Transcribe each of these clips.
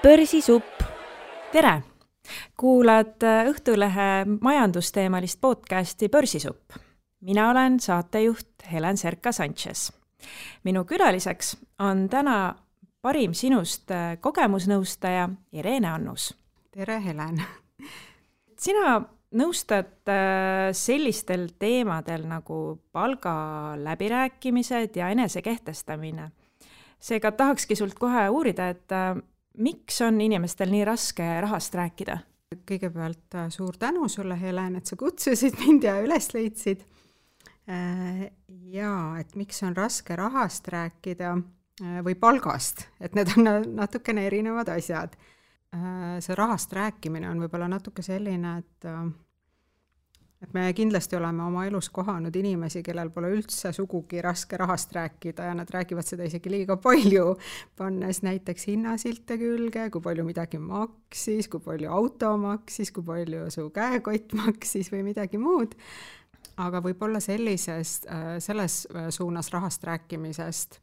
Börsisupp. Tere! Kuulad Õhtulehe majandusteemalist podcasti Börsisupp. Mina olen saatejuht Helen Serka-Sanchez. Minu külaliseks on täna parim sinust kogemusnõustaja Irene Annus. Tere, Helen! Sina nõustad sellistel teemadel nagu palgaläbirääkimised ja enesekehtestamine. Seega tahakski sult kohe uurida, et miks on inimestel nii raske rahast rääkida? Kõigepealt suur tänu sulle, Helen, et sa kutsusid mind ja üles leidsid. Ja, et miks on raske rahast rääkida või palgast, et need on natukene erinevad asjad. See rahast rääkimine on võib-olla natuke selline, et me kindlasti oleme oma elus kohanud inimesi, kellel pole üldse sugugi raske rahast rääkida ja nad räägivad seda isegi liiga palju, pannes näiteks hinnasilte külge, kui palju midagi maksis, kui palju auto maksis, kui palju su käekott maksis või midagi muud. Aga võib-olla selles suunas rahast rääkimisest,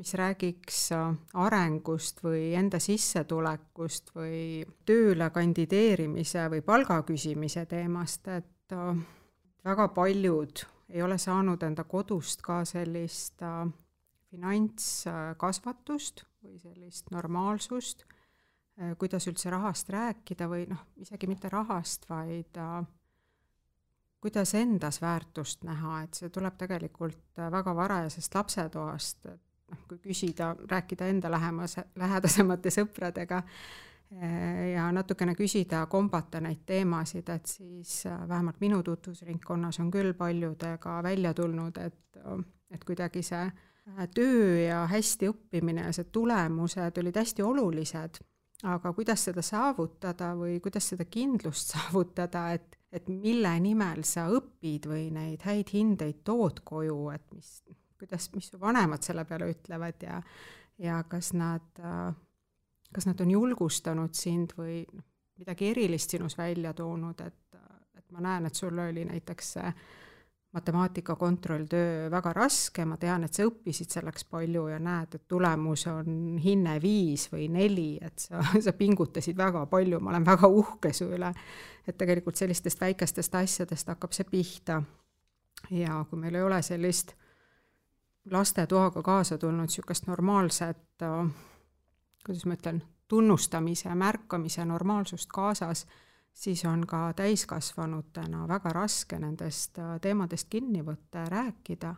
mis räägiks arengust või enda sissetulekust või tööle kandideerimise või palga küsimise teemast, et väga paljud ei ole saanud enda kodust ka sellist finantskasvatust või sellist normaalsust, kuidas üldse rahast rääkida või isegi mitte rahast, vaid kuidas endas väärtust näha, et see tuleb tegelikult väga varajasest lapsetoast, kui küsida, rääkida enda lähedasemate sõpradega ja natukene küsida, kombata neid teemasid, et siis vähemalt minu tutvusringkonnas on küll paljudega välja tulnud, et kuidagi see töö ja hästi õppimine ja see tulemused olid hästi olulised, aga kuidas seda saavutada või kuidas seda kindlust saavutada, et mille nimel sa õpid või neid häid hindeid tood koju, et mis su vanemad selle peale ütlevad ja kas nad on julgustanud sind või midagi erilist sinus välja toonud, et ma näen, et sul oli näiteks matemaatika kontrolltöö väga raske, ma tean, et sa õppisid selleks palju ja näed, et tulemus on hinne 5 või 4, et sa pingutasid väga palju, ma olen väga uhke su üle, et tegelikult sellistest väikestest asjadest hakkab see pihta. Ja kui meil ei ole sellist lastetoaga kaasa tulnud niisugust normaalset, kuidas ma ütlen, tunnustamise ja märkamise normaalsust kaasas, siis on ka täiskasvanutena väga raske nendest teemadest kinni võtta ja rääkida.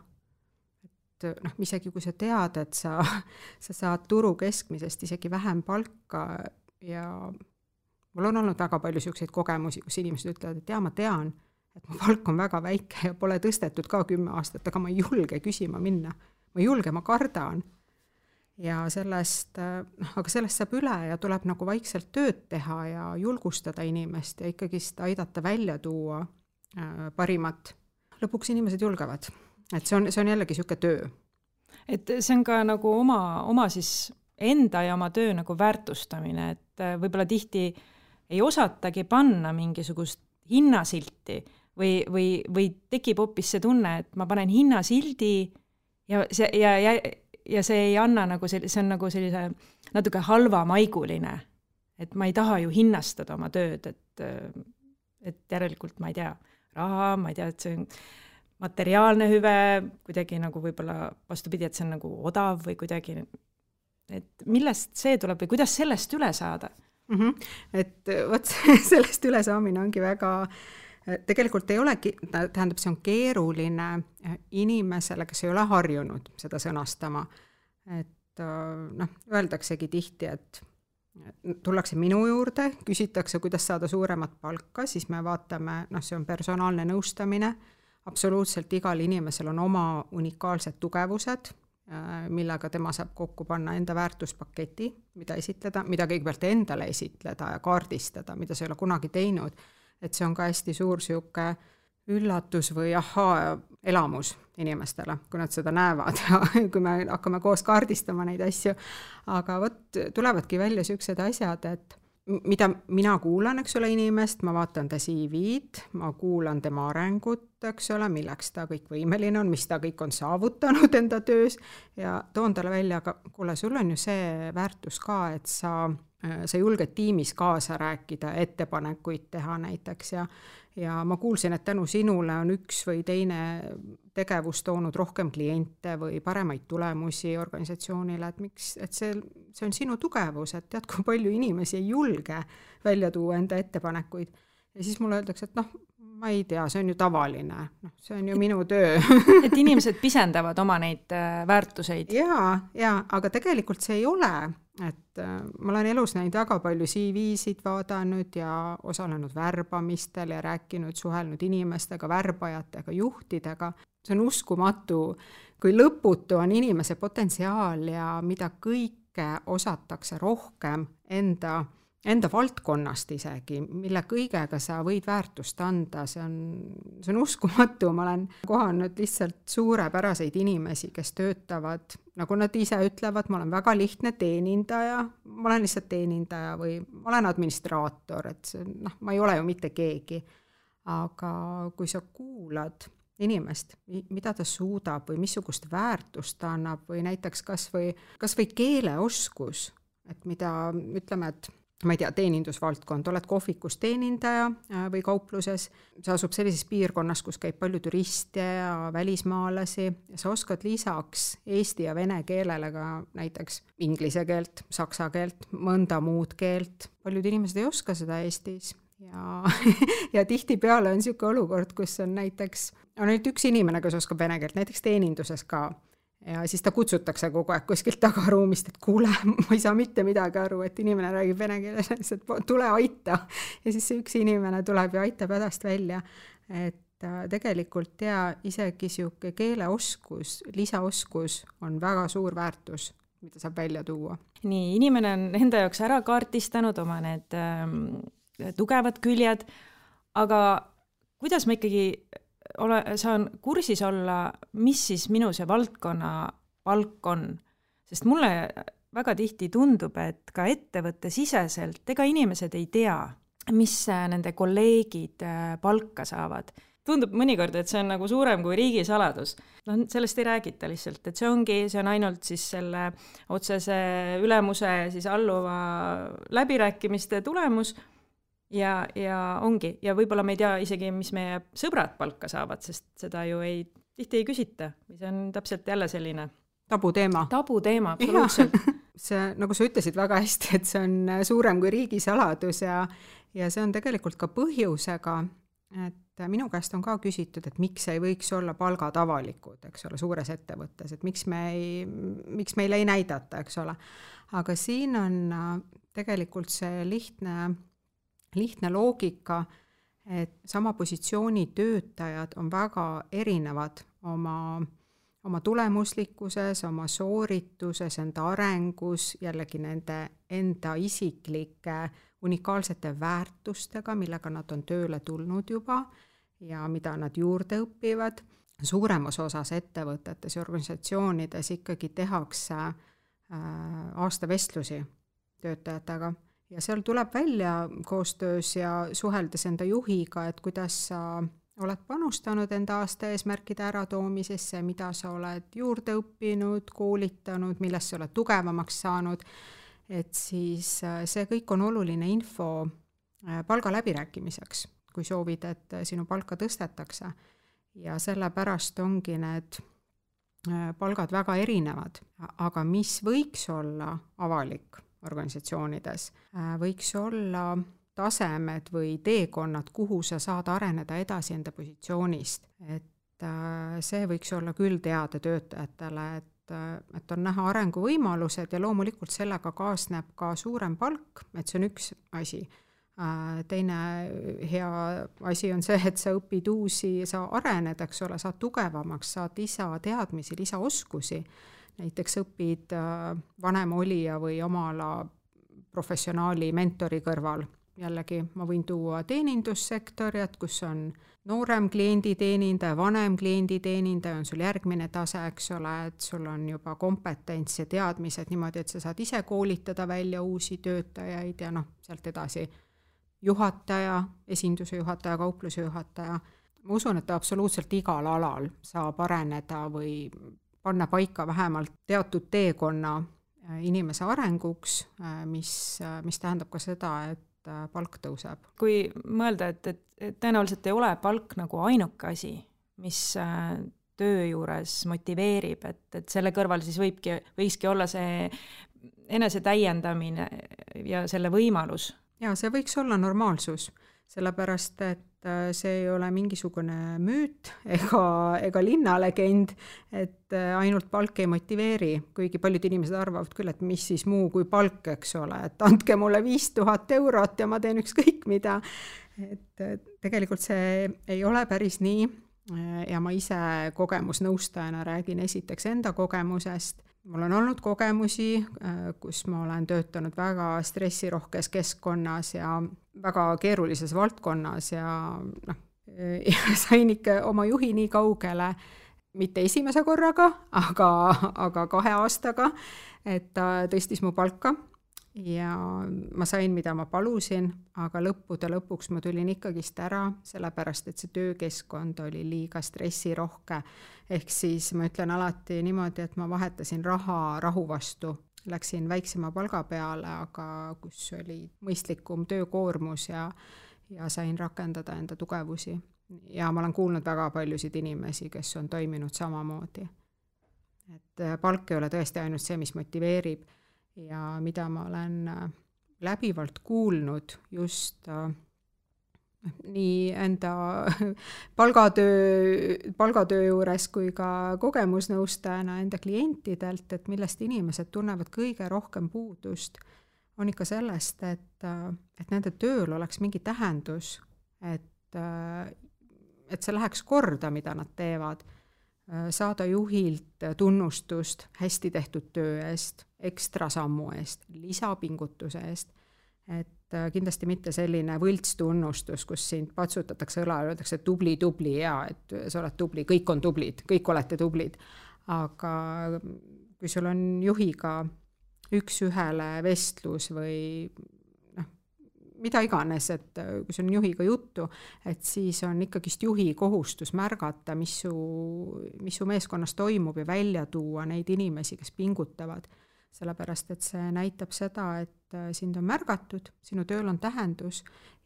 Et isegi kui sa tead, et sa saad turu keskmisest isegi vähem palka ja mul on olnud väga palju niisuguseid kogemusi, kus inimesed ütlevad, et ma tean, et mu palk on väga väike ja pole tõstetud ka 10 aastat, aga ma ei julge küsima minna. Ma ei julge, ma kardan. Ja sellest saab üle ja tuleb nagu vaikselt tööd teha ja julgustada inimest ja ikkagi aidata välja tuua parimat. Lõpuks inimesed julgevad. Et see on jällegi niisugune töö. Et see on ka nagu oma siis enda ja oma töö nagu väärtustamine, et võib-olla tihti ei osatagi panna mingisugust hinnasilti või tekib hoopis see tunne, et ma panen hinnasildi ja see ei anna nagu see on nagu sellise natuke halvamaiguline, et ma ei taha ju hinnastada oma tööd, et järelikult ma ei tea, raha, ma ei tea, et see on materiaalne hüve, kuidagi nagu võib-olla vastupidi, et see on nagu odav või kuidagi, et millest see tuleb või kuidas sellest üle saada? Et võt sellest üle saamine ongi väga tegelikult ei olegi, tähendab, see on keeruline inimesele, kes ei ole harjunud seda sõnastama. Et öeldaksegi tihti, et tullakse minu juurde, küsitakse, kuidas saada suuremat palka, siis me vaatame, see on personaalne nõustamine, absoluutselt igal inimesel on oma unikaalsed tugevused, millega tema saab kokku panna enda väärtuspaketi, mida esitleda, mida kõigepealt endale esitleda ja kaardistada, mida sa ei ole kunagi teinud. Et see on ka hästi suur siuke üllatus või elamus inimestele, kui nad seda näevad ja kui me hakkame koos kaardistama neid asju. Aga tulevadki välja siuksed asjad, et mida mina kuulan, eks ole, inimest, ma vaatan ta CV-d, ma kuulan tema arengut, eks ole, milleks ta kõik võimeline on, mis ta kõik on saavutanud enda töös ja toon talle välja, aga kuule, sul on ju see väärtus ka, et sa sa julged tiimis kaasa rääkida, ettepanekuid teha näiteks ja ma kuulsin, et tänu sinule on üks või teine tegevus toonud rohkem kliente või paremaid tulemusi organisatsioonile, et see on sinu tugevus, et tead, kui palju inimesi ei julge välja tuua enda ettepanekuid. Ja siis mulle öeldakse, et ma ei tea, see on ju tavaline, see on ju minu töö. Et inimesed pisendavad oma neid väärtuseid. Jaa, aga tegelikult see ei ole. Et ma olen elus näinud väga palju CV-sid vaadanud ja osalenud värbamistel ja rääkinud, suhelnud inimestega, värbajatega, juhtidega. See on uskumatu, kui lõputu on inimese potentsiaal ja mida kõike osatakse rohkem enda valdkonnast isegi, mille kõigega sa võid väärtust anda, see on uskumatu. Ma olen kohanud lihtsalt suurepäraseid inimesi, kes töötavad, nagu nad ise ütlevad, ma olen väga lihtne teenindaja, ma olen lihtsalt teenindaja või ma olen administraator, et ma ei ole ju mitte keegi. Aga kui sa kuulad inimest, mida ta suudab või missugust väärtust ta annab või näiteks kas või keeleoskus, et mida ütleme, et ma ei tea, teenindusvaldkond, oled kohvikus teenindaja või kaupluses, sa asub sellises piirkonnas, kus käib palju turiste ja välismaalasi ja sa oskad lisaks eesti ja vene keelele ka näiteks inglise keelt, saksa keelt, mõnda muud keelt. Paljud inimesed ei oska seda Eestis ja tihtipeale on niisugune olukord, kus on näiteks ainult üks inimene, kes oskab vene keelt, näiteks teeninduses ka. Ja siis ta kutsutakse kogu aeg kuskilt tagaruumist, et kuule, ma ei saa mitte midagi aru, et inimene räägib vene keeles, et tule aita. Ja siis see üks inimene tuleb ja aitab hädast välja. Et tegelikult isegi siuke keeleoskus, lisaoskus on väga suur väärtus, mida saab välja tuua. Nii, inimene on enda jaoks ära kaartistanud oma need tugevad küljed, aga kuidas ma ikkagi saan kursis olla, mis siis minu see valdkonna palk on. Sest mulle väga tihti tundub, et ka ettevõtte siseselt ega inimesed ei tea, mis nende kolleegid palka saavad. Tundub mõnikord, et see on nagu suurem kui riigisaladus. Sellest ei räägita lihtsalt, et see on ainult siis selle otsese ülemuse siis alluva läbirääkimiste tulemus. Ja ongi. Ja võib-olla me ei tea isegi, mis meie sõbrad palka saavad, sest seda ju tihti ei küsita. See on täpselt jälle selline tabuteema, absoluutselt. See, nagu sa ütlesid väga hästi, et see on suurem kui riigisaladus ja see on tegelikult ka põhjusega, et minu käest on ka küsitud, et miks ei võiks olla palgad avalikud, eks ole, suures ettevõttes, et miks meile ei näidata, eks ole. Aga siin on tegelikult see lihtne loogika, et sama positsiooni töötajad on väga erinevad oma tulemuslikkuses, oma soorituses, enda arengus, jällegi nende enda isiklike unikaalsete väärtustega, millega nad on tööle tulnud juba ja mida nad juurde õpivad. Suuremas osas ettevõtetes ja organisatsioonides ikkagi tehakse aastavestlusi töötajatega. Ja seal tuleb välja koostöös ja suheldes enda juhiga, et kuidas sa oled panustanud enda aasta eesmärkide äratoomisesse, mida sa oled juurde õppinud, koolitanud, milles sa oled tugevamaks saanud, et siis see kõik on oluline info palga läbirääkimiseks, kui soovid, et sinu palka tõstetakse. Ja sellepärast ongi need palgad väga erinevad, aga mis võiks olla avalik organisatsioonides, võiks olla tasemed või teekonnad, kuhu sa saad areneda edasi enda positsioonist. Et see võiks olla küll teada töötajatele, et on näha arenguvõimalused ja loomulikult sellega kaasneb ka suurem palk, et see on üks asi. Teine hea asi on see, et sa õpid uusi, sa arened, eks ole, saad tugevamaks, saad lisateadmisi, lisaoskusi. Näiteks õpid vanem olija või oma ala professionaali mentori kõrval. Jällegi ma võin tuua teenindussektoriat, kus on noorem klienditeenindaja, vanem klienditeenindaja, on sul järgmine tase, eks ole, et sul on juba kompetents ja teadmised niimoodi, et sa saad ise koolitada välja uusi töötajaid ja sealt edasi juhataja, esinduse juhataja, kaupluse juhataja. Ma usun, et absoluutselt igal alal saab areneda või panna paika vähemalt teatud teekonna, inimese arenguks, mis tähendab ka seda, et palk tõuseb. Kui mõelda, et tõenäoliselt ei ole palk nagu ainuke asi, mis töö juures motiveerib, et selle kõrval siis võikski olla see enese täiendamine ja selle võimalus. Ja see võiks olla normaalsus, sellepärast et see ei ole mingisugune müüt ega linnalegend, et ainult palk ei motiveeri, kuigi paljud inimesed arvavad küll, et mis siis muu kui palk, eks ole, et andke mulle 5000 eurot ja ma teen ükskõik mida. Et tegelikult see ei ole päris nii ja ma ise kogemusnõustajana räägin esiteks enda kogemusest. Mul on olnud kogemusi, kus ma olen töötanud väga stressirohkes keskkonnas ja väga keerulises valdkonnas ja sain ikka oma juhi nii kaugele, mitte esimese korraga, aga 2 aastaga, et ta tõstis mu palka ja ma sain, mida ma palusin, aga lõpuks ma tulin ikkagist ära, sellepärast et see töökeskkond oli liiga stressirohke. Ehk siis ma ütlen alati niimoodi, et ma vahetasin rahu vastu. Läksin väiksema palga peale, aga kus oli mõistlikum töökoormus ja sain rakendada enda tugevusi. Ja ma olen kuulnud väga paljusid inimesi, kes on toiminud samamoodi. Et palk ei ole tõesti ainult see, mis motiveerib. Ja mida ma olen läbivalt kuulnud just nii enda palgatöö juures kui ka kogemusnõustajana enda klientidelt, et millest inimesed tunnevad kõige rohkem puudust, on ikka sellest, et nende tööl oleks mingi tähendus, et see läheks korda, mida nad teevad. Saada juhilt tunnustust hästi tehtud töö eest, ekstra sammu eest, lisapingutuse eest, et kindlasti mitte selline võltstunnustus, kus sind patsutatakse õla ja öeldakse tubli ja et sa oled tubli, kõik on tublid, kõik olete tublid, aga kui sul on juhiga üks-ühele vestlus või mida iganes, et kui sul on juhiga juttu, et siis on ikkagist juhi kohustus märgata, mis su meeskonnas toimub ja välja tuua neid inimesi, kes pingutavad. Sellepärast, et see näitab seda, et sind on märgatud, sinu tööl on tähendus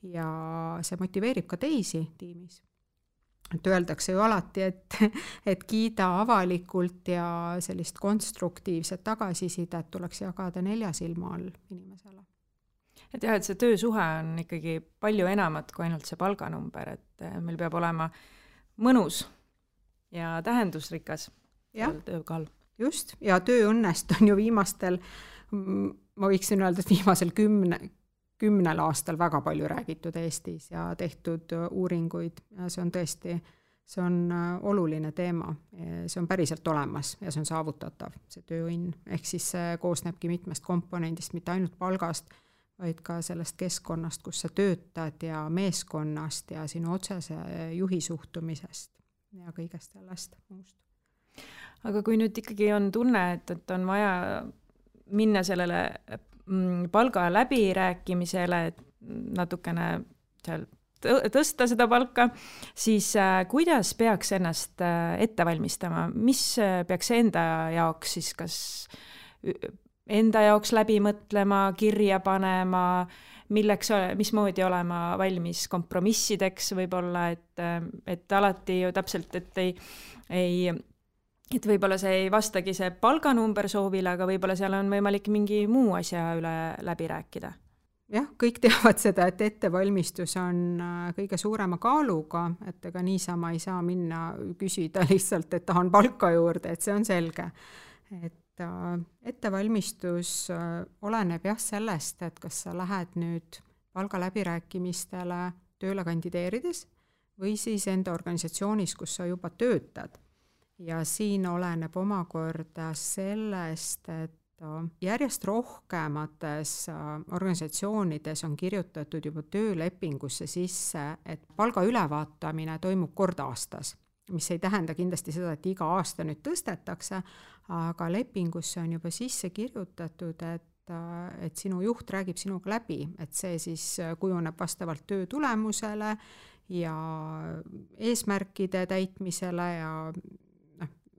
ja see motiveerib ka teisi tiimis. Et öeldakse ju alati, et kiida avalikult ja sellist konstruktiivset tagasisidet tuleks jagada 4 silma all inimesele. Et jah, et see töösuhe on ikkagi palju enamat kui ainult see palganumber, et meil peab olema mõnus ja tähendusrikas töökall. Just, ja tööõnnest on ju viimastel, ma võiksin öelda, et viimasel 10 aastal väga palju räägitud Eestis ja tehtud uuringuid ja see on tõesti, see on oluline teema, see on päriselt olemas ja see on saavutatav, see tööõnn, ehk siis see koosnebki mitmest komponendist, mitte ainult palgast, vaid ka sellest keskkonnast, kus sa töötad ja meeskonnast ja sinu otsese juhi suhtumisest ja kõigest sellest muust. Aga kui nüüd ikkagi on tunne, et on vaja minna sellele palga läbirääkimisele, et natukene seal tõsta seda palka, siis kuidas peaks ennast ette valmistama? Mis peaks enda jaoks siis kas enda jaoks läbi mõtlema, kirja panema, mismoodi olema valmis kompromissideks võib-olla, et alati ju täpselt, et võib-olla see ei vastagi see palganumber soovile, aga võib-olla seal on võimalik mingi muu asja üle läbi rääkida. Jah, kõik teavad seda, et ettevalmistus on kõige suurema kaaluga, et ega niisama ei saa minna küsida lihtsalt, et tahan palka juurde, et see on selge. Et ettevalmistus oleneb sellest, et kas sa lähed nüüd palga läbirääkimistele tööle kandideerides või siis enda organisatsioonis, kus sa juba töötad. Ja siin oleneb omakorda sellest, et järjest rohkemates organisatsioonides on kirjutatud juba töölepingusse sisse, et palga ülevaatamine toimub kord aastas, mis ei tähenda kindlasti seda, et iga aasta nüüd tõstetakse, aga lepingusse on juba sisse kirjutatud, et sinu juht räägib sinuga läbi, et see siis kujuneb vastavalt töö tulemusele ja eesmärkide täitmisele ja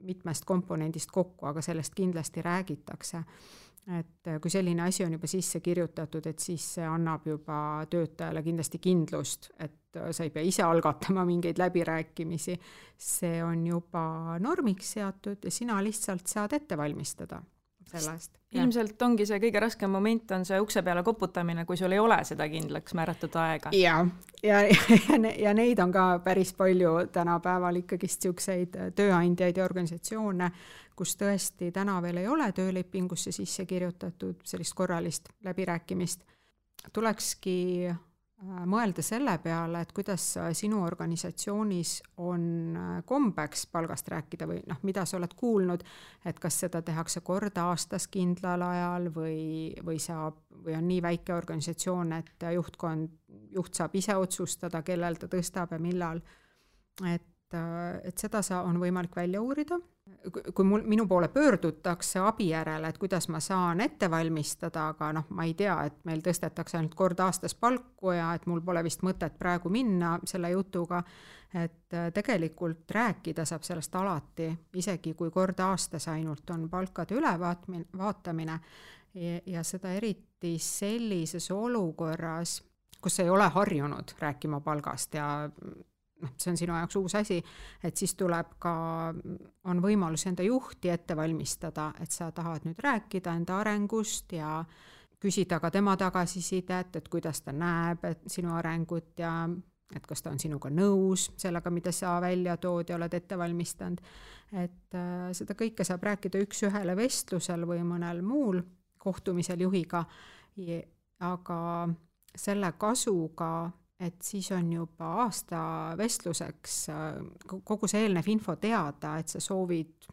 mitmest komponendist kokku, aga sellest kindlasti räägitakse. Et kui selline asi on juba sisse kirjutatud, et siis see annab juba töötajale kindlasti kindlust, et sa ei pea ise algatama mingeid läbirääkimisi. See on juba normiks seatud ja sina lihtsalt saad ette valmistada sellest. Ilmselt ongi see kõige raskem moment on see ukse peale koputamine, kui sul ei ole seda kindlaks määratud aega. Ja neid on ka päris palju tänapäeval ikkagi siukseid tööandjaid ja organisatsioone, kus tõesti täna veel ei ole töölepingusse sisse kirjutatud sellist korralist läbirääkimist. Tulekski mõelda selle peale, et kuidas sinu organisatsioonis on kombeks palgast rääkida või mida sa oled kuulnud, et kas seda tehakse kord aastas kindlal ajal või on nii väike organisatsioon, et juht saab ise otsustada, kellel ta tõstab ja millal. Et seda on võimalik välja uurida. Kui minu poole pöördutakse abi järele, et kuidas ma saan ette valmistada, aga ma ei tea, et meil tõstetakse ainult kord aastas palku ja et mul pole vist mõtet praegu minna selle jutuga, et tegelikult rääkida saab sellest alati, isegi kui kord aastas ainult on palkade ülevaatamine ja seda eriti sellises olukorras, kus ei ole harjunud rääkima palgast ja see on sinu jaoks uus asi, et siis on võimalus enda juhti ette valmistada, et sa tahad nüüd rääkida enda arengust ja küsida ka tema tagasisidet, et kuidas ta näeb sinu arengut ja et kas ta on sinuga nõus sellega, mida sa välja tood ja oled ette valmistanud. Et seda kõike saab rääkida üks-ühele vestlusel või mõnel muul kohtumisel juhiga, aga selle kasuga, et siis on juba aasta vestluseks kogu see eelnev info teada, et sa soovid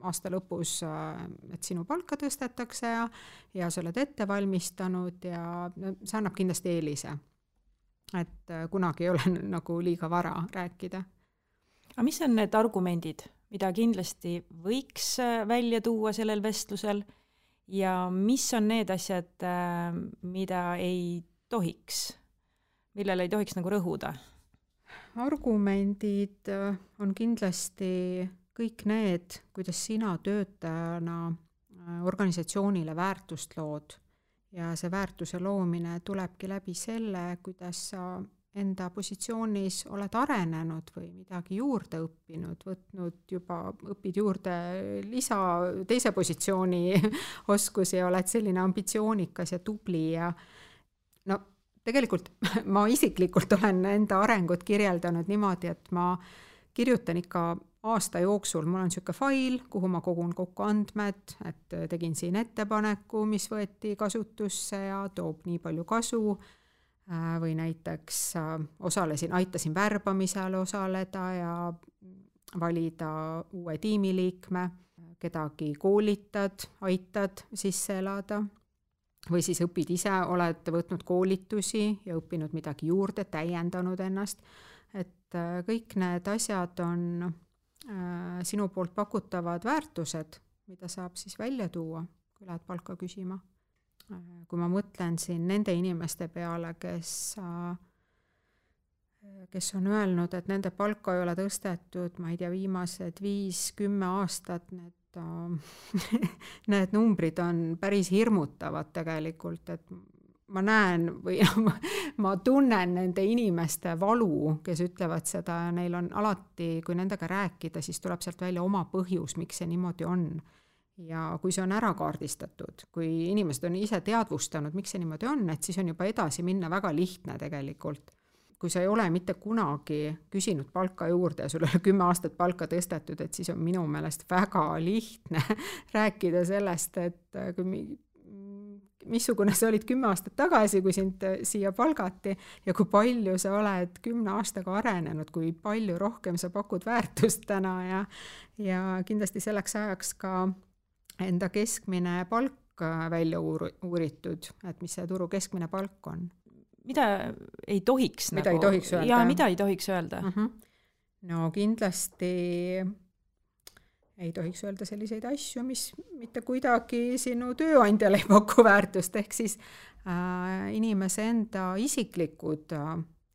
aasta lõpus, et sinu palka tõstetakse ja sa oled ette valmistanud ja see annab kindlasti eelise. Et kunagi ei ole nagu liiga vara rääkida. Aga mis on need argumendid, mida kindlasti võiks välja tuua sellel vestlusel ja mis on need asjad, mida ei tohiks? Millele ei tohiks nagu rõhuda? Argumendid on kindlasti kõik need, kuidas sina töötajana organisatsioonile väärtust lood ja see väärtuse loomine tulebki läbi selle, kuidas sa enda positsioonis oled arenenud või midagi juurde õppinud, õpid juurde teise positsiooni oskusi ja oled selline ambitsioonikas ja tubli ja tegelikult ma isiklikult olen enda arengut kirjeldanud niimoodi, et ma kirjutan ikka aasta jooksul, mul on selline fail, kuhu ma kogun kokku andmed, et tegin siin ettepaneku, mis võeti kasutusse ja toob nii palju kasu või näiteks aitasin värbamisel osaleda ja valida uue tiimiliikme, kedagi koolitad, aitad sisse elada. Või siis õpid ise, oled võtnud koolitusi ja õppinud midagi juurde, täiendanud ennast. Et kõik need asjad on sinu poolt pakutavad väärtused, mida saab siis välja tuua, kui lähed palka küsima. Kui ma mõtlen siin nende inimeste peale, kes on öelnud, et nende palka ei ole tõstetud, ma ei tea, viimased 5-10 aastat, need numbrid on päris hirmutavad tegelikult, et ma näen või ma tunnen nende inimeste valu, kes ütlevad seda ja neil on alati, kui nendega rääkida, siis tuleb sealt välja oma põhjus, miks see niimoodi on. Ja kui see on ära kaardistatud, kui inimesed on ise teadvustanud, miks see niimoodi on, et siis on juba edasi minna väga lihtne tegelikult. Kui sa ei ole mitte kunagi küsinud palka juurde ja sul ei ole 10 aastat palka tõstetud, et siis on minu meelest väga lihtne rääkida sellest, et missugune sa olid 10 aastat tagasi, kui sind siia palgati ja kui palju sa oled 10 aastaga arenenud, kui palju rohkem sa pakud väärtust täna ja kindlasti selleks ajaks ka enda keskmine palk välja uuritud, et mis see turu keskmine palk on. Mida ei tohiks mida ei tohiks öelda? Ja mida ei tohiks öelda? No kindlasti ei tohiks öelda selliseid asju, mis mitte kuidagi sinu tööandjale ei paku väärtust, ehk siis inimese enda isiklikud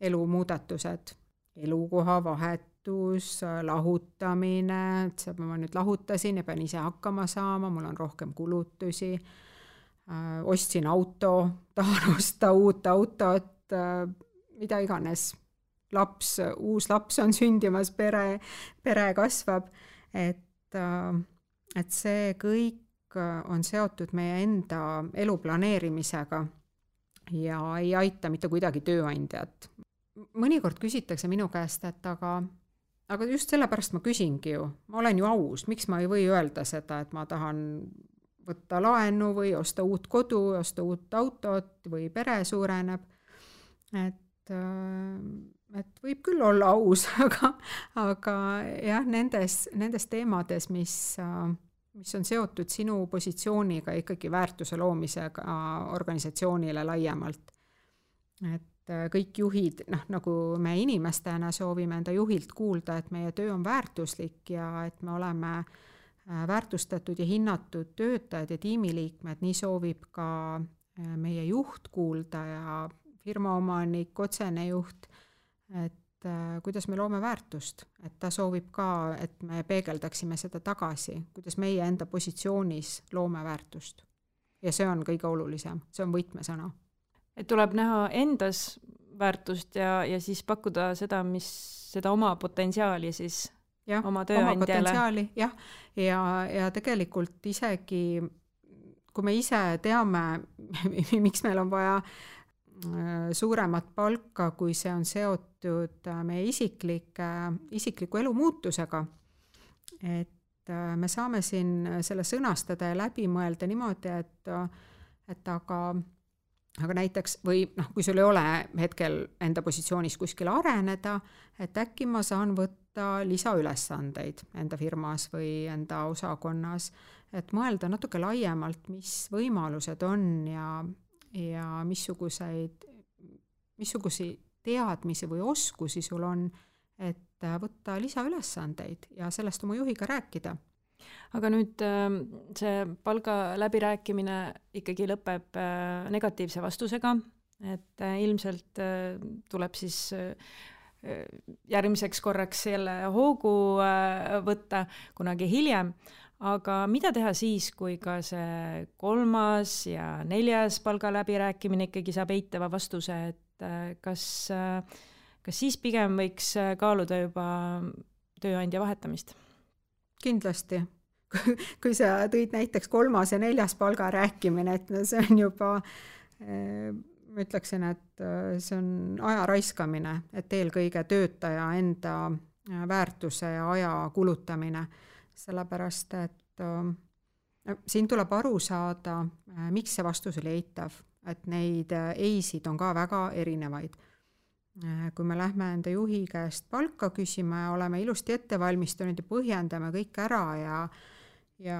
elumuudatused, elukoha vahet vahetus, lahutamine, et ma nüüd lahutasin ja pean ise hakkama saama, mul on rohkem kulutusi, ostsin auto, tahan osta uut autot, mida iganes, uus laps on sündimas, pere kasvab, et see kõik on seotud meie enda elu planeerimisega ja ei aita mitte kuidagi tööandjat. Mõnikord küsitakse minu käest, et aga just sellepärast ma küsingi ju, ma olen ju aus, miks ma ei või öelda seda, et ma tahan võtta laenu või osta uut kodu, osta uut autot või pere suureneb, et võib küll olla aus, aga jah, nendes teemades, mis on seotud sinu positsiooniga ikkagi väärtuse loomisega organisatsioonile laiemalt. Et kõik juhid, nagu me inimestena soovime enda juhilt kuulda, et meie töö on väärtuslik ja et me oleme väärtustatud ja hinnatud töötajad ja tiimiliikmed, nii soovib ka meie juht kuulda ja firmaomanik, otsene juht, et kuidas me loome väärtust, et ta soovib ka, et me peegeldaksime seda tagasi, kuidas meie enda positsioonis loome väärtust. Ja see on kõige olulisem, see on võtmesõna. Et tuleb näha endas väärtust ja siis pakkuda seda oma potentsiaali siis oma tööandjale. Oma potentsiaali, jah. Ja tegelikult isegi, kui me ise teame, miks meil on vaja suuremat palka, kui see on seotud meie isikliku elu muutusega. Et me saame siin selle sõnastada ja läbi mõelda niimoodi, et aga näiteks, või kui sul ei ole hetkel enda positsioonis kuskil areneda, et äkki ma saan võtta lisaülesandeid enda firmas või enda osakonnas, et mõelda natuke laiemalt, mis võimalused on ja missuguseid teadmisi või oskusi sul on, et võtta lisaülesandeid ja sellest oma juhiga rääkida. Aga nüüd see palga läbirääkimine ikkagi lõpeb negatiivse vastusega, et ilmselt tuleb siis järgmiseks korraks jälle hoogu võtta kunagi hiljem. Aga mida teha siis, kui ka see 3. ja 4. palga läbirääkimine ikkagi saab eitava vastuse, et kas siis pigem võiks kaaluda juba tööandja vahetamist? Kindlasti. Kui sa tõid näiteks 3. ja 4. palga rääkimine, et see on juba, ma ütleksin, et see on aja raiskamine, et eelkõige töötaja enda väärtuse ja aja kulutamine. Sellepärast, et siin tuleb aru saada, miks see vastus oli eitav, et neid eisid on ka väga erinevaid. Kui me lähme enda juhi käest palka küsima ja oleme ilusti ette valmistunud ja põhjendame kõik ära ja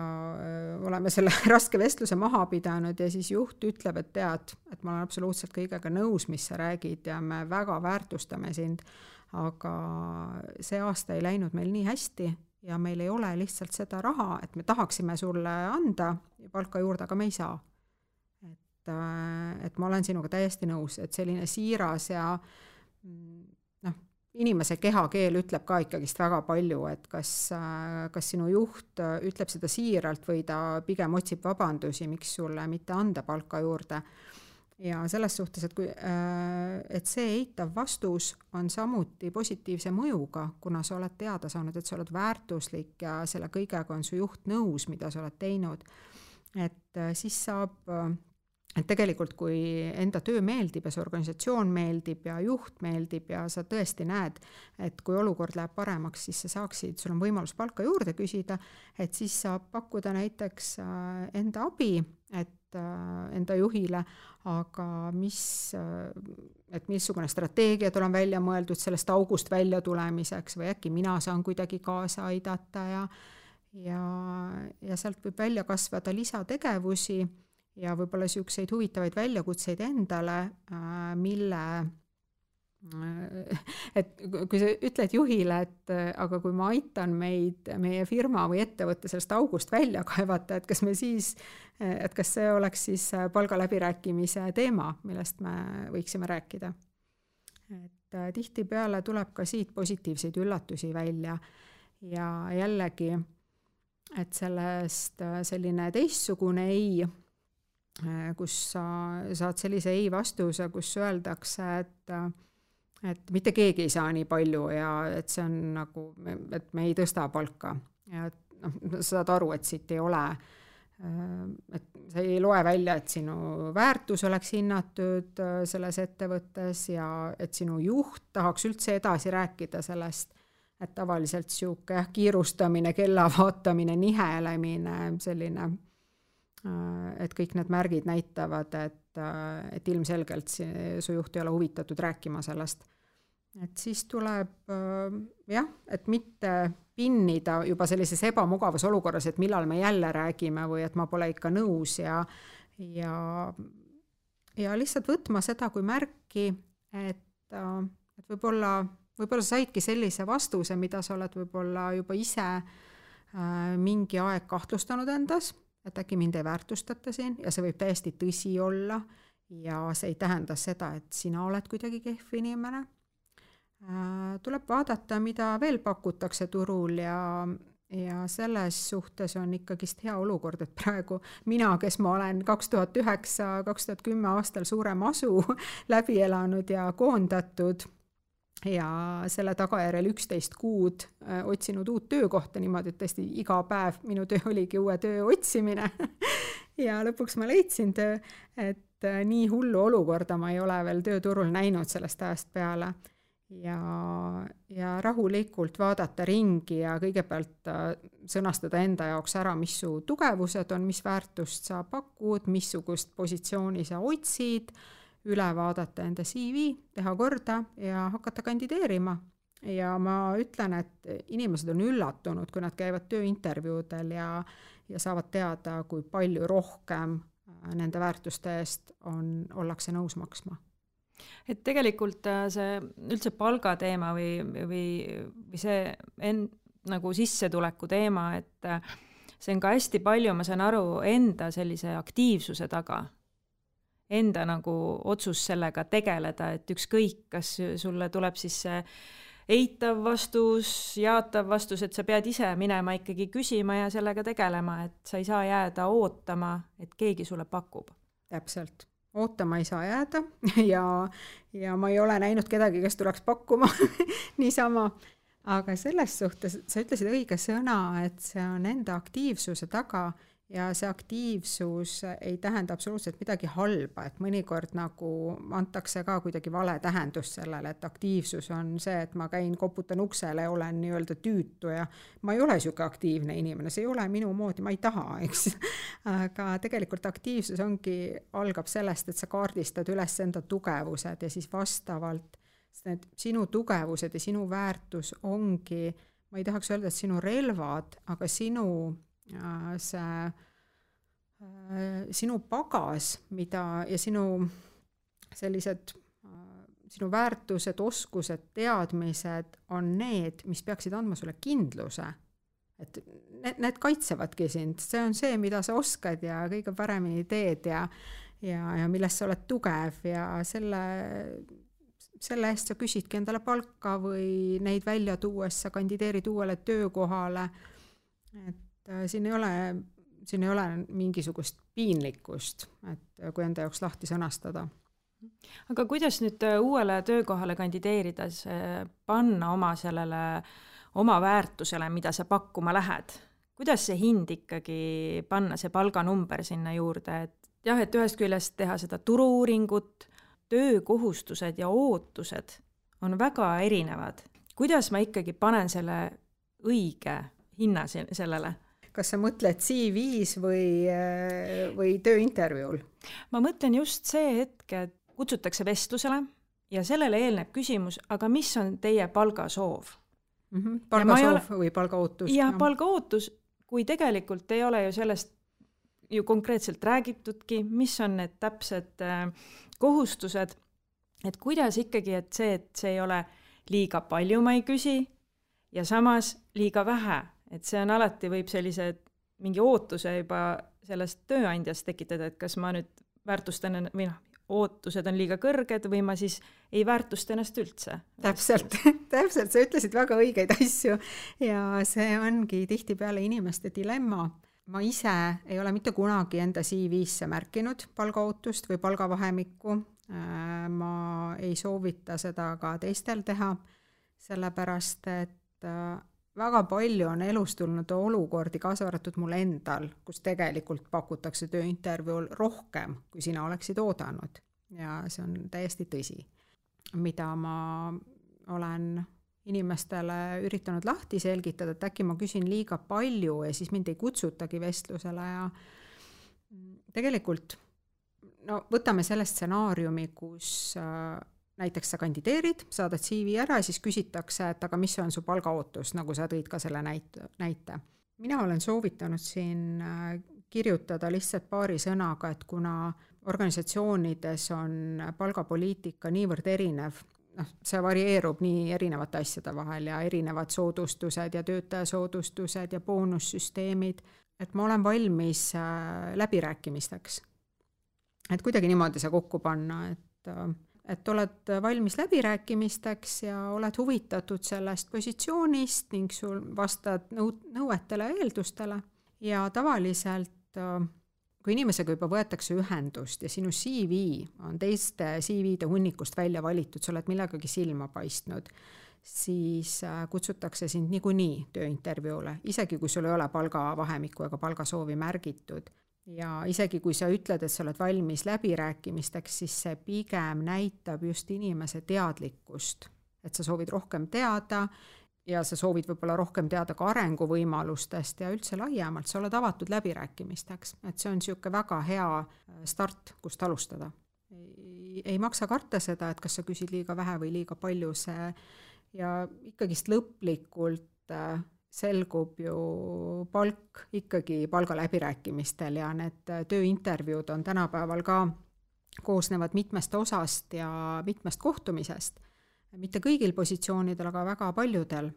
oleme selle raske vestluse maha pidanud ja siis juht ütleb, et tead, et ma olen absoluutselt kõigega nõus, mis sa räägid ja me väga väärtustame sind, aga see aasta ei läinud meil nii hästi ja meil ei ole lihtsalt seda raha, et me tahaksime sulle anda palka juurde, aga me ei saa. Et ma olen sinuga täiesti nõus, et selline siiras ja inimese kehakeel ütleb ka ikkagist väga palju, et kas sinu juht ütleb seda siiralt või ta pigem otsib vabandusi, miks sulle mitte anda palka juurde. Ja selles suhtes, et see eitav vastus on samuti positiivse mõjuga, kuna sa oled teada saanud, et sa oled väärtuslik ja selle kõigega on su juht nõus, mida sa oled teinud. Et siis saab, et tegelikult kui enda töö meeldib ja see organisatsioon meeldib ja juht meeldib ja sa tõesti näed, et kui olukord läheb paremaks, siis sa saaksid, sul on võimalus palka juurde küsida, et siis saab pakkuda näiteks enda abi, et enda juhile, aga missugune strateegiad olen välja mõeldud sellest august välja tulemiseks või äkki mina saan kuidagi kaasa aidata ja sealt võib välja kasvada lisategevusi ja võib-olla niisuguseid huvitavaid väljakutseid endale, et kui sa ütled juhile, et aga kui ma aitan meie firma või ettevõtte sellest august välja kaevata, et kas see oleks siis palgaläbirääkimise teema, millest me võiksime rääkida. tihtipeale tuleb ka siit positiivseid üllatusi välja ja jällegi, et sellest selline teistsugune ei, kus sa saad sellise ei vastuse, kus öeldakse, et mitte keegi ei saa nii palju ja et see on nagu, et me ei tõsta palka ja sa saad aru, et siit ei ole, et sa ei loe välja, et sinu väärtus oleks hinnatud selles ettevõttes ja et sinu juht tahaks üldse edasi rääkida sellest, et tavaliselt siuke kiirustamine, kella vaatamine, nihelemine, selline, et kõik need märgid näitavad, et ilmselgelt su juht ei ole huvitatud rääkima sellest. Et siis tuleb et mitte pinnida juba sellises ebamugavas olukorras, et millal me jälle räägime või et ma pole ikka nõus ja lihtsalt võtma seda kui märki, et võib-olla sa saidki sellise vastuse, mida sa oled võib-olla juba ise mingi aeg kahtlustanud endas, et äkki mind ei väärtustata siin ja see võib täiesti tõsi olla ja see ei tähenda seda, et sina oled kuidagi kehv inimene. Tuleb vaadata, mida veel pakutakse turul ja selles suhtes on ikkagist hea olukord, et praegu mina, kes ma olen 2009-2010 aastal suure masu läbi elanud ja koondatud ja selle tagajärjel 11 kuud otsinud uut töökohta niimoodi, et tõesti iga päev minu töö oligi uue töö otsimine ja lõpuks ma leidsin töö, et nii hullu olukorda ma ei ole veel tööturul näinud sellest ajast peale. Ja rahulikult vaadata ringi ja kõigepealt sõnastada enda jaoks ära, mis su tugevused on, mis väärtust sa pakud, missugust positsiooni sa otsid, üle vaadata enda CV, teha korda ja hakata kandideerima. Ja ma ütlen, et inimesed on üllatunud, kui nad käivad tööintervjuudel ja saavad teada, kui palju rohkem nende väärtuste eest ollakse nõus maksma. Et tegelikult see üldse palgateema või see nagu sissetuleku teema, et see on ka hästi palju, ma saan aru, enda sellise aktiivsuse taga. Enda nagu otsus sellega tegeleda, et ükskõik, kas sulle tuleb siis see eitav vastus, jaatav vastus, et sa pead ise minema ikkagi küsima ja sellega tegelema, et sa ei saa jääda ootama, et keegi sulle pakub. Täpselt. Ootama ei saa jääda ja ma ei ole näinud kedagi, kes tuleks pakkuma niisama. Aga selles suhtes sa ütlesid õige sõna, et see on enda aktiivsuse taga ja see aktiivsus ei tähenda absoluutselt midagi halba, et mõnikord nagu antakse ka kuidagi vale tähendus sellele, et aktiivsus on see, et ma käin, koputan uksele ja olen nii-öelda tüütu ja ma ei ole siuke aktiivne inimene, see ei ole minu moodi, ma ei taha, eks. Aga tegelikult aktiivsus algab sellest, et sa kaardistad üles enda tugevused ja siis vastavalt need sinu tugevused ja sinu väärtus ongi, ma ei tahaks öelda, et sinu relvad, aga sinu pagas, ja sinu sellised, sinu väärtused, oskused, teadmised on need, mis peaksid andma sulle kindluse. Et need kaitsevadki sind, see on see, mida sa oskad ja kõige paremini teed ja milles sa oled tugev ja selle eest sa küsidki endale palka või neid välja tuues sa kandideerid uuele töökohale, et siin ei ole mingisugust piinlikkust, et kui enda jaoks lahti sõnastada. Aga kuidas nüüd uuele töökohale kandideerides panna oma väärtusele, mida sa pakkuma lähed? Kuidas see hind ikkagi panna, see palganumber sinna juurde? Et ühest küljest teha seda turu-uuringut, töökohustused ja ootused on väga erinevad. Kuidas ma ikkagi panen selle õige hinna sellele? Kas sa mõtled CV-s või tööintervjuul? Ma mõtlen just see hetk, et kutsutakse vestlusele ja sellele eelneb küsimus, aga mis on teie palgasoov? Palgasoov või palgaootus? Ja palgaootus, kui tegelikult ei ole ju sellest ju konkreetselt räägitudki, mis on need täpsed kohustused, et kuidas ikkagi, et see ei ole liiga palju ma ei küsi ja samas liiga vähe, et see on alati võib sellise mingi ootuse juba sellest tööandjast tekitada, et kas ma nüüd väärtustan või ootused on liiga kõrged või ma siis ei väärtusta ennast üldse. Täpselt, sa ütlesid väga õigeid asju ja see ongi tihtipeale inimeste dilemma. Ma ise ei ole mitte kunagi enda CV-sse märkinud palgaootust või palgavahemikku. Ma ei soovita seda ka teistel teha, sellepärast et väga palju on elus tulnud olukordi, kaasa arvatud mul endal, kus tegelikult pakutakse tööintervjuul rohkem, kui sina oleksid oodanud. Ja see on täiesti tõsi, mida ma olen inimestele üritanud lahti selgitada, et äkki ma küsin liiga palju ja siis mind ei kutsutagi vestlusele ja tegelikult võtame selle stsenaariumi, kus näiteks sa kandideerid, saadad CV ära ja siis küsitakse, et aga mis on su palgaootus, nagu sa tõid ka selle näite. Mina olen soovitanud siin kirjutada lihtsalt paari sõnaga, et kuna organisatsioonides on palgapoliitika niivõrd erinev, see varieerub nii erinevate asjade vahel ja erinevad soodustused ja töötajasoodustused ja boonussüsteemid, et ma olen valmis läbirääkimisteks. Et kuidagi niimoodi see kokku panna, et oled valmis läbirääkimisteks ja oled huvitatud sellest positsioonist ning sul vastad nõuetele ja eeldustele. Ja tavaliselt, kui inimesega juba võetakse ühendust ja sinu CV on teiste CV-de hunnikust välja valitud, sa oled millegagi silma paistnud, siis kutsutakse sind niikuinii tööintervjuule, isegi kui sul ei ole palgavahemikku ega palgasoovi märgitud. Ja isegi kui sa ütled, et sa oled valmis läbirääkimisteks, siis see pigem näitab just inimese teadlikkust, et sa soovid rohkem teada ja sa soovid võib-olla rohkem teada ka arenguvõimalustest ja üldse laiemalt, sa oled avatud läbirääkimisteks, et see on niisugune väga hea start, kust alustada. Ei maksa karta seda, et kas sa küsid liiga vähe või liiga palju, see ja ikkagist lõplikult selgub ju palk ikkagi palgaläbirääkimistel ja need tööintervjuud on tänapäeval ka koosnevad mitmest osast ja mitmest kohtumisest. Mitte kõigil positsioonidel, aga väga paljudel.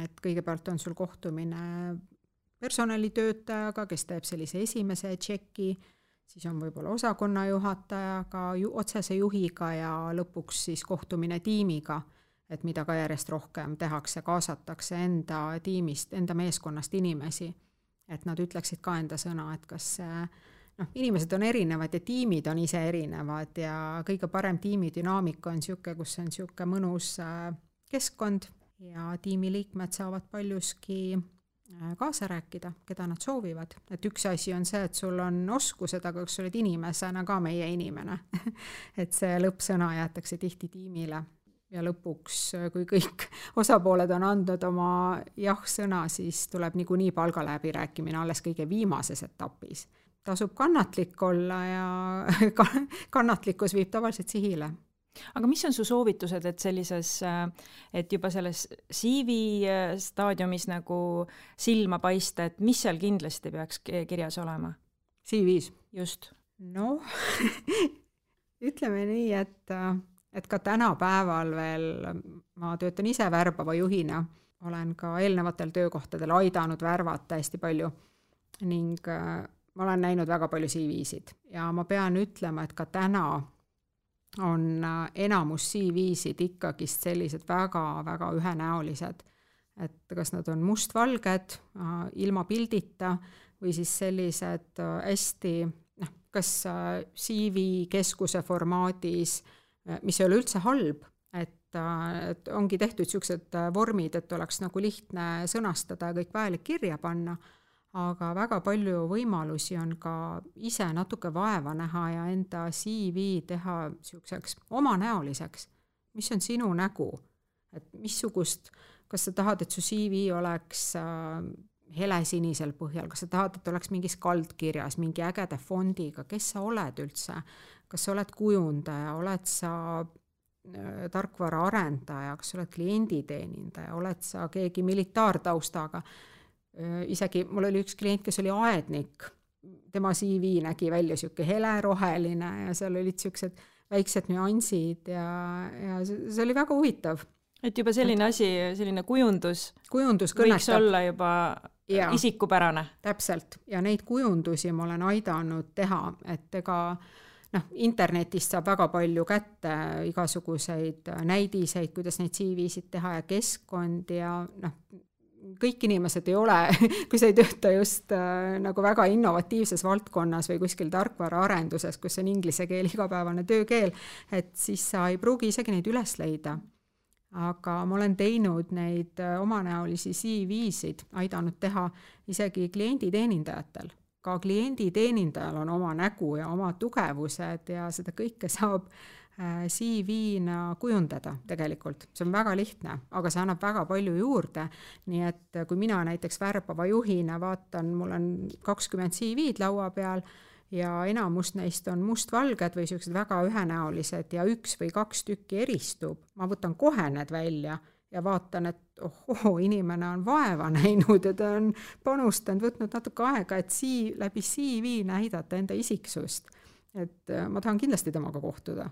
Et kõigepealt on sul kohtumine personalitöötajaga, kes teeb sellise esimese tšeki, siis on võib-olla osakonna juhatajaga, otsese juhiga ja lõpuks siis kohtumine tiimiga, et mida ka järjest rohkem tehakse, kaasatakse enda tiimist, enda meeskonnast inimesi, et nad ütleksid ka enda sõna, et kas inimesed on erinevad ja tiimid on ise erinevad ja kõige parem tiimidünaamika on niisugune, kus on niisugune mõnus keskkond ja tiimiliikmed saavad paljuski kaasa rääkida, keda nad soovivad. Et üks asi on see, et sul on oskused, aga kas sa oled inimesena ka meie inimene. Et see lõppsõna jäetakse tihti tiimile. Ja lõpuks, kui kõik osapooled on andnud oma jah-sõna, siis tuleb niikuinii palgaläbirääkimine alles kõige viimases etapis. Tasub kannatlik olla ja kannatlikkus viib tavaliselt sihile. Aga mis on su soovitused, et sellises, et juba selles CV staadiumis nagu silma paista, et mis seal kindlasti peaks kirjas olema? CV-s? Just. No, ütleme nii, et ka tänapäeval veel ma töötan ise värbava juhina, olen ka eelnevatel töökohtadel aidanud värvata hästi palju ning ma olen näinud väga palju CV-sid ja ma pean ütlema, et ka täna on enamus CV-sid ikkagist sellised väga-väga ühenäolised, et kas nad on mustvalged, ilma pildita või siis sellised hästi, kas CV keskuse formaadis, mis ei ole üldse halb, et ongi tehtud niisugused vormid, et oleks nagu lihtne sõnastada ja kõik vajalik kirja panna, aga väga palju võimalusi on ka ise natuke vaeva näha ja enda CV teha niisuguseks omanäoliseks. Mis on sinu nägu? Et missugust, kas sa tahad, et su CV oleks helesinisel põhjal, kas sa tahad, et oleks mingis kaldkirjas, mingi ägede fondiga, kes sa oled üldse? Kas sa oled kujundaja, oled sa tarkvara arendaja, kas sa oled klienditeenindaja, oled sa keegi militaartaustaga? Isegi mul oli üks klient, kes oli aednik, tema CV nägi välja niisugune heleroheline ja seal olid niisugused väiksed nüansid ja see oli väga huvitav. Et juba selline asi, selline kujundus kõnetab. Võiks olla juba isikupärane. Täpselt. Ja neid kujundusi ma olen aidanud teha, et ega internetist saab väga palju kätte igasuguseid näidiseid, kuidas neid CV-sid teha ja keskkond ja kõik inimesed ei ole, kui sa ei tööta just nagu väga innovatiivses valdkonnas või kuskil tarkvaraarenduses, kus on inglise keel igapäevane töökeel, et siis sa ei pruugi isegi neid üles leida. Aga ma olen teinud neid omanäolisi CV-sid, aidanud teha isegi klienditeenindajatel. Ka klienditeenindajal on oma nägu ja oma tugevused ja seda kõike saab CV-na kujundada tegelikult. See on väga lihtne, aga see annab väga palju juurde. Nii et kui mina näiteks värbava juhina vaatan, mul on 20 CV-d laua peal ja enamus neist on mustvalged või sellised väga ühenäolised ja 1 või 2 tükki eristub. Ma võtan kohe need välja ja vaatan, et inimene on vaeva näinud ja ta on panustanud, võtnud natuke aega, et läbi CV näidata enda isiksust. Et ma tahan kindlasti temaga kohtuda.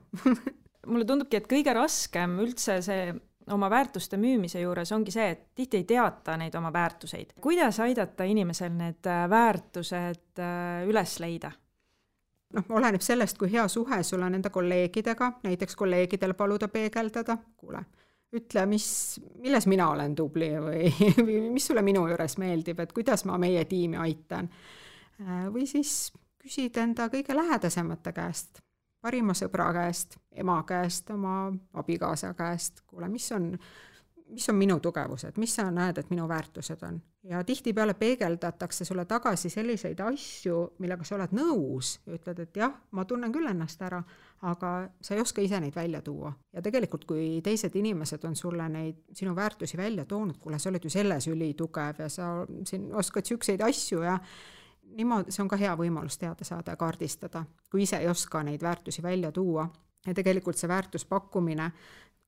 Mulle tundubki, et kõige raskem üldse see oma väärtuste müümise juures ongi see, et tihti ei teata neid oma väärtuseid. Kuidas aidata inimesel need väärtused üles leida? Oleneb sellest, kui hea suhe sul on enda kolleegidega, näiteks kolleegidel paluda peegeldada, kuule, ütle, milles mina olen tubli või mis sulle minu juures meeldib, et kuidas ma meie tiimi aitan. Või siis küsid enda kõige lähedasemate käest, parima sõbra käest, ema käest, oma abikaasa käest, kuule, mis on minu tugevused, mis sa näed, et minu väärtused on. Ja tihtipeale peegeldatakse sulle tagasi selliseid asju, millega sa oled nõus ja ütled, et jah, ma tunnen küll ennast ära, aga sa ei oska ise neid välja tuua. Ja tegelikult, kui teised inimesed on sulle neid sinu väärtusi välja toonud, kuule, sa oled ju selles ülitugev ja sa siin oskad sükseid asju ja niimoodi, see on ka hea võimalus teada saada ja kaardistada, kui ise ei oska neid väärtusi välja tuua. Ja tegelikult see väärtuspakkumine,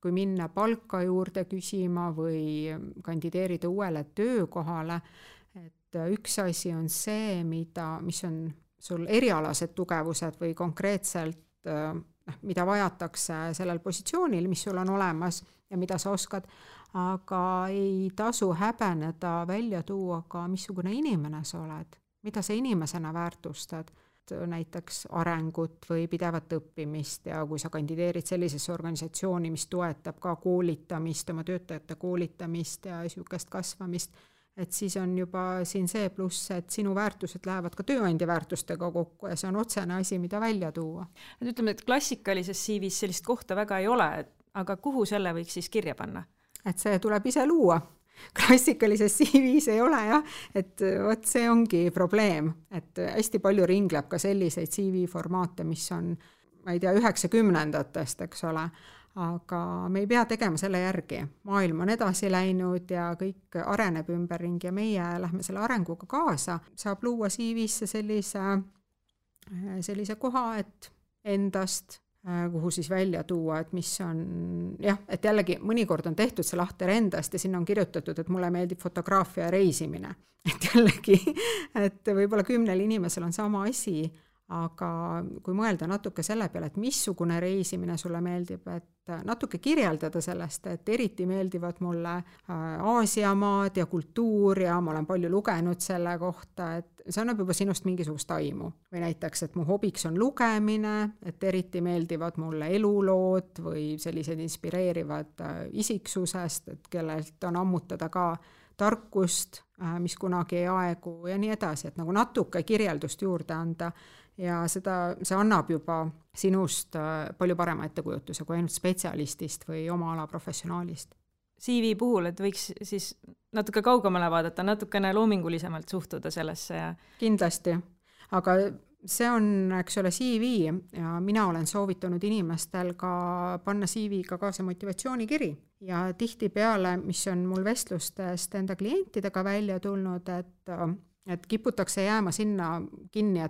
kui minna palka juurde küsima või kandideerida uuele töökohale, et üks asi on see, mis on sul erialased tugevused või konkreetselt, mida vajatakse sellel positsioonil, mis sul on olemas ja mida sa oskad, aga ei tasu häbeneda välja tuua ka, missugune inimene sa oled, mida sa inimesena väärtustad. Näiteks arengut või pidevat õppimist ja kui sa kandideerid sellisesse organisatsiooni, mis toetab ka koolitamist, oma töötajate koolitamist ja niisugust kasvamist, et siis on juba siin see pluss, et sinu väärtused lähevad ka tööandja väärtustega kokku ja see on otsene asi, mida välja tuua. Et ütleme, et klassikalises CV-s sellist kohta väga ei ole, aga kuhu selle võiks siis kirja panna? Et see tuleb ise luua. Klassikalises CV-s ei ole jah, et vot see ongi probleem, et hästi palju ringleb ka selliseid CV-formaate, mis on, ma ei tea, 90-ndatest, eks ole, aga me ei pea tegema selle järgi. Maailm on edasi läinud ja kõik areneb ümberringi ja meie lähme selle arenguga kaasa. Saab luua CV-sse sellise koha, et endast kuhu siis välja tuua, et mis on, jah, et jällegi mõnikord on tehtud see lahter endast ja sinna on kirjutatud, et mulle meeldib fotograafia ja reisimine. Et jällegi, et võib-olla 10 inimesel on sama asi, aga kui mõelda natuke selle peale, et missugune reisimine sulle meeldib, et natuke kirjeldada sellest, et eriti meeldivad mulle Aasiamaad ja kultuur ja ma olen palju lugenud selle kohta, et see annab juba sinust mingisugust aimu. Või näiteks, et mu hobiks on lugemine, et eriti meeldivad mulle elulood või sellised inspireerivad isiksusest, et kellelt on ammutada ka tarkust, mis kunagi ei aegu ja nii edasi, et nagu natuke kirjeldust juurde anda ja see annab juba sinust palju parema ettekujutuse kui ainult spetsialistist või oma ala professionaalist. CV puhul, et võiks siis natuke kaugemale vaadata, natukene loomingulisemalt suhtuda sellesse ja... Kindlasti, aga see on, eks ole, CV ja mina olen soovitanud inimestel ka panna CV-ga kaasa motivatsioonikiri ja tihtipeale, mis on mul vestlustest enda klientidega välja tulnud, et kiputakse jääma sinna kinni,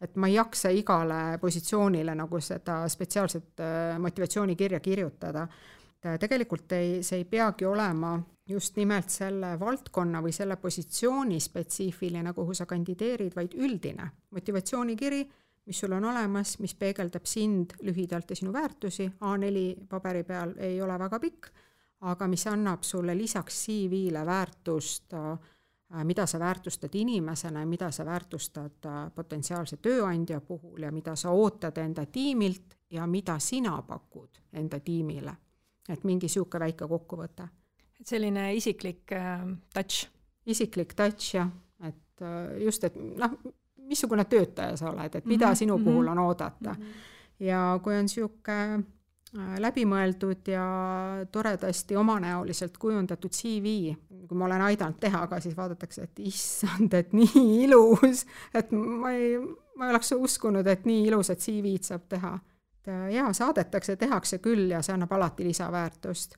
et ma ei jaksa igale positsioonile nagu seda spetsiaalset motivatsioonikirja kirjutada. Tegelikult see ei peagi olema just nimelt selle valdkonna või selle positsiooni spetsiifiline, kuhu sa kandideerid, vaid üldine motivatsioonikiri, mis sul on olemas, mis peegeldab sind lühidalt ja sinu väärtusi. A4 paberi peal ei ole väga pikk, aga mis annab sulle lisaks CV-le väärtust mida sa väärtustad inimesena ja mida sa väärtustad potentsiaalse tööandja puhul ja mida sa ootad enda tiimilt ja mida sina pakud enda tiimile. Et mingi siuke väike kokkuvõte. Selline isiklik touch. Isiklik touch, jah. Et just, et missugune töötaja sa oled, et mida sinu puhul on oodata. Ja kui on siuke läbimõeldud ja toredasti omanäoliselt kujundatud CV, kui ma olen aidanud teha, aga siis vaadatakse, et issand, et nii ilus, et ma ei oleks uskunud, et nii ilusat CV-d saab teha. Ja saadetakse, tehakse küll ja see annab alati lisaväärtust.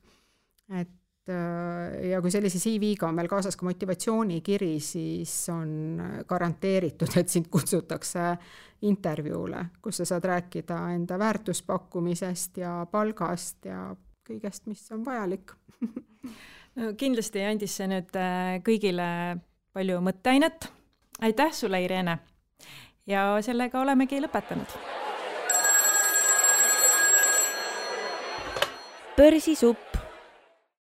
Et ja kui sellise CV-ga on meil kaasas ka motivatsioonikiri, siis on garanteeritud, et sind kutsutakse intervjuule, kus sa saad rääkida enda väärtuspakkumisest ja palgast ja kõigest, mis on vajalik. No, kindlasti andis see nüüd kõigile palju mõtteainet. Aitäh sulle, Irene! Ja sellega olemegi lõpetanud. Börsisupp